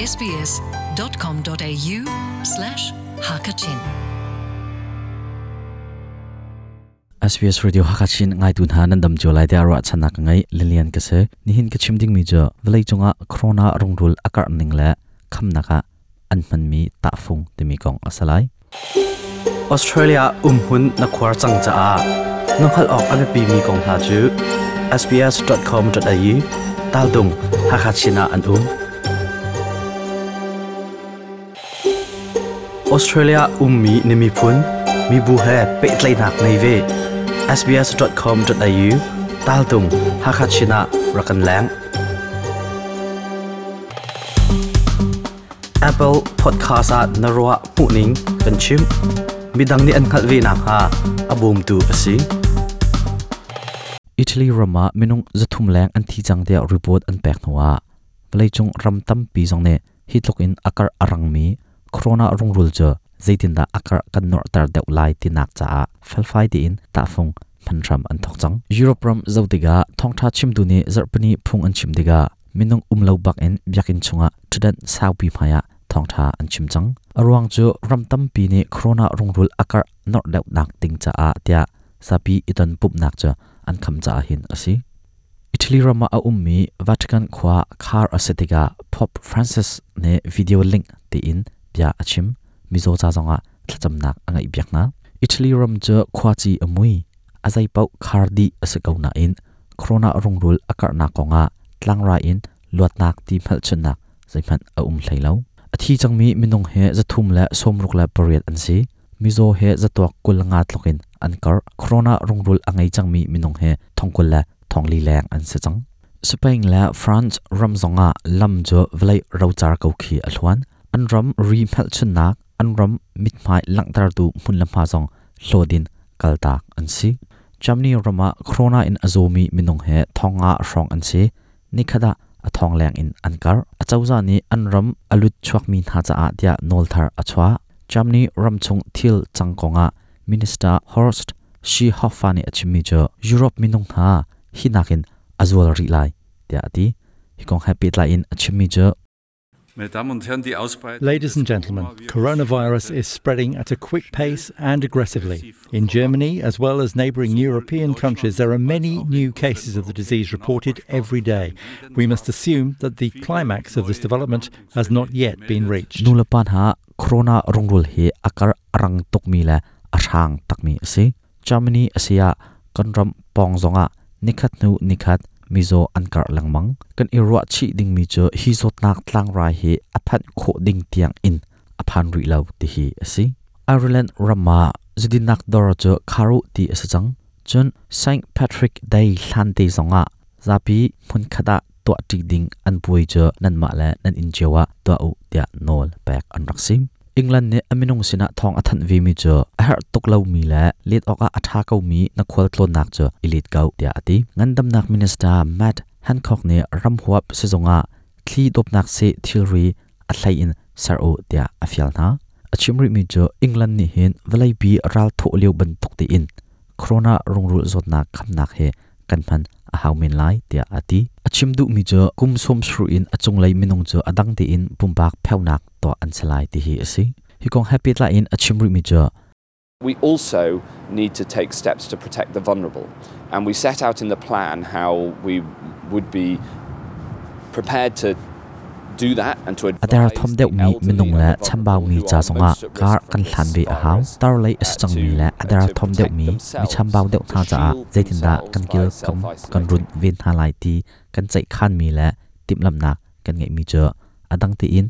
sbs.com.au slash hakachin. SBS Radio Hakachin ngaitu hna nan dam cio lai tiah ruahchannak ka ngei. Lilian ka si. Nihin ka chim dingmi cu vawlei cungah corona rungrul a karh ning le khamnak ah an hmanmi tahfung timi kong a si lai. Australia umhmun na khuar cang caah na hngalh awk a biapimi kong hna cu sbs.com.au taldung Hakha Chin ah an um. Australia ummi na miphun, mibu he pehtlaihnak ngei ve. sbs.com.au taltung Hakha Chin ah rak kan leng. Apple Podcast ah na ruah hmuhning kan chim. Midang nih an hngalh ve nakhnga a bawmtu a si. Italy ram ah minung 300 leng an thi cang tiah report an pek hnuah vawleicung ram tampi zong nih hi tluk in a karh a rangmi corona rungrul cu zeitindah a karh kan norhter deuh lai tinak caah felfai tein tahfung hman hram an thawk cang. Europe ram zoh tikah thawngṭha chimtu nih zarhpini phung an chim tikah minung um lo bak in biakinn chungah ṭhutdan saupi hmaiah thawngṭha an chim cang. A ruang cu ram tampi nih corona rungrul a karh norh deuhnak ding caah tiah zapi i ton pumhnak cu an kham caah hin a si. Italy ram ah a ummi Vatican khua khar a si tikah Pope Francis nih video link tiin bia a chim. Mizaw ca zongah thlacamnak a ngeihpiak hna. Italy ram cu khuaci a mui, a zeipaoh khar dih a si ko nain corona rungrul a karhnak kongah tlangrai in luatnak ti hmelchunhnak zeihmanh a um hlei lo. A thi cangmi minung hi 368 an si. Mizaw he zatuak 25 tluk in an karh. Corona rungrul a ngei cangmi minung hi 44,000 leng an si cang. Spain le France ram zongah lam cu vawlei rocar ko khi a hluan. An ram ri hmelchunhnak, an ram mithmai langhtertu hmun le hma zong hlawt in kaltak an si. Germany ram ah corona in a zawmi minung he 5,000 hrawng an si. Nikhat ah a thong leng in an karh. Acozah nih an ram a lut chuakmi hna caah tiah nawl thar a chuah. Germany ramchung thil cang kongah Minister Horst Seehofer nih a chimmi cu Europe minung hna hi nakin a zual rih lai tiah a ti. Hi kong he pehtlai in a chimmi cu Ladies and gentlemen, coronavirus is spreading at a quick pace and aggressively. In Germany, as well as neighboring European countries, there are many new cases of the disease reported every day. We must assume that the climax of this development has not yet been reached. Nulepa hna corona rungrul hi a kar a rang tukmi le a hrang takmi a si. Germany a si ah kan ram pawng zongah nikhat hnu nikhat mizaw an karh lengmang. Kan i ruah chih dingmi cu hi zawtnak tlangrai hi a phanh khawh ding tiang in a phan rih lo ti hi a si. Ireland ram ah zudinnak dawr cu kharu ti a si cang. Cun St. Patrick Day hlan te zongah zapi hmunkhat ah tuahṭi ding an puai cu nanmah le nan inn cio ah tuah u tiah nawl pek an rak si. England nih a minung sinah thawng a thanh vemi cu a herh tuk lomi le let awkah a ṭha komi na khualtlawnnak cu i let ko tiah a ti. Ngandamnak Minister Matt Hancock nih ramhuap sizung ah thli dawpnak seh thilri a hlei in ser u tiah a fial hna. A chim rihmi cu England nih hin vawleipi ral thawh lio bantuk tein corona rungrul zawtnak khamnak hi kan hman a hau men lai tiah a ti. A chim duhmi cu kum 70 in a cunglei minung cu a dang tein pumpak pheunak tuah an si lai ti hi a si. Hi kong he pehtlai in a chim rihmi cu We also need to take steps to protect the vulnerable. And we set out in the plan how we would be prepared to A derthawm deuhmi minung le chambaumi ca zongah kar kan hlan ve a hau. Tarlei a si cangmi le a derthawm deuhmi mi chambau deuh hna caah zeitindah kan kilkam kan runh ven hna lai ti kan ceihkhanmi le timhlamhnak kan ngeihmi cu a dang tein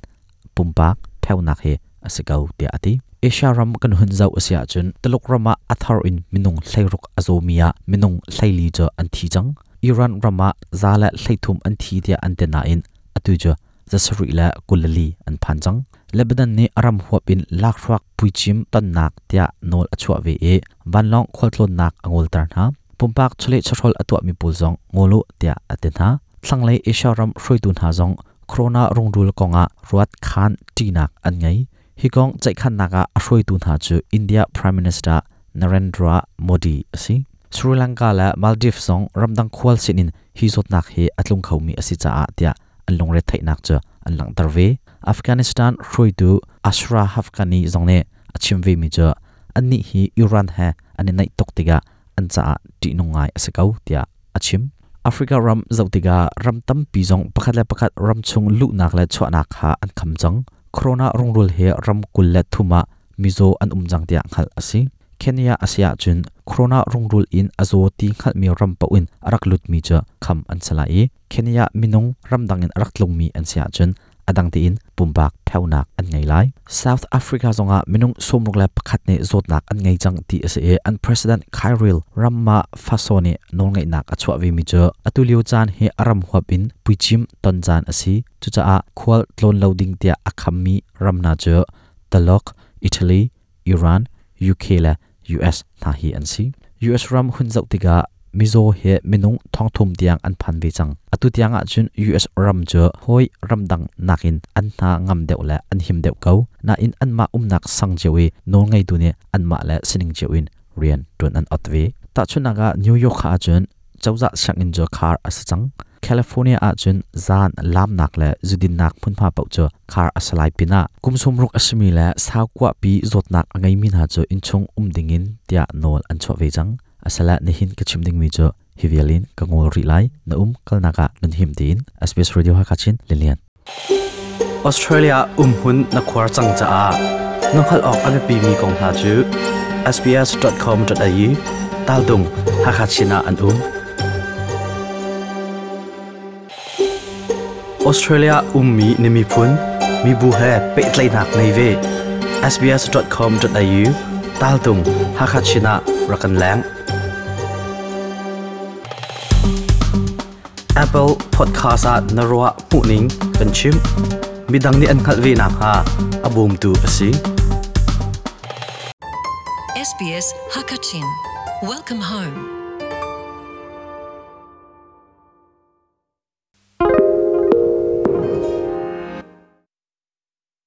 pumpak pheunak hi a si ko tiah a ti. Asia ram kan hun zoh a si ahcun Tuluk ram ah a thar in minung 16 a zawmi ah minung 14 cu an thi cang. Iran ram ah 130 an thi tiah an ti nain atu cu 724 an phan cang. Lebanon nih a ram huap in lakhruak puicim tonnak tiah nawl a chuah ve i vanlawng khualtlawnnak a ngolter hna. Pumpak chawleh chawhrawl a tuahmi pawl zong ngol u tiah a ti hna. Thlanglei Asia ram hruaitu hna zong corona rungrul kongah ruat khan ṭihnak an ngei. Hi kong ceihkhannak ah a hruaitu hna cu India Prime Minister Narendra Modi a si. Sri Lanka le Maldives zong ramdang khual sinin hi zawtnak hi a tlung khomi a si caah tiah an lungretheihnak cu an langhter ve. Afghanistan hruaitu Ashraf Ghani zong nih a chim ve mi cu annih hi Iran he an i naih tuk tikah an caah ṭihnung ngai a si ko tiah a chim. Africa ram zoh tikah ram tampi zong pakhat le pakhat ram chung luhnak le chuahnak kha an kham cang. Corona rungrul hi ram 23 ah mizaw an um cang tiah hngalh a si. Kenya a si ahcun corona rungrul in a zaw ti hngalhmi ram paoh in a rak lutmi cu kham an si lai i Kenya minung ramdang in a rak tlungmi an si ahcun a dang tein pumpak pheunak an ngei lai. South Africa zongah minung 61 nih zawtnak an ngei cang ti a si i an president Cyril Ramaphosa nih nawlngeihnak a chuah vemi cu atu lio caan hi a ram huap in puicim ton caan a si. Cucaah khual tlawn lo ding tiah a khammi ram hna cu Taluk, Italy, Iran, UK le US hna hi an si. US ram hun zoh tikah mizaw hi minung 3,000 tiang an phan ve cang. Atu tiang ahcun US ram cu hawi ramdang nakin an hna ngam deuh le an him deuh ko. Nain anmah umnak sang cio i nawlngeitu nih anmah le sining cio in rian ṭuan an ot ve. Tahchunhnak ah New York ahcun cozah sianginn cu khar a si cang. California ahcun zan lamnak le zudinnak hmunhma paoh cu khar a si lai pinah kum 60 a simi le saukuahpi zawtnak a ngeimi hna cu innchung um dingin tiah nawl an chuah ve cang. Asala nihin ka chim dingmi cu hi vial in ka ngol rih lai. Na um kalnak ah nan him tiin SBS Radio Hakha Chin Lilian. Australia umhun na khuar cang caah na hngalh awk a biapimi kong hna cu sbs.com.au taldung Hakha Chin ah an um. Australia ummi na miphun mibu he pehtlaihnak ngei ve. sbs.com.au taltung Hakha Chin ah rak kan leng. Apple Podcast ah na ruah hmuhning kan chim. Midang nih an hngalh ve nakhnga a bawmtu a si. SBS Hakachin. Welcome home.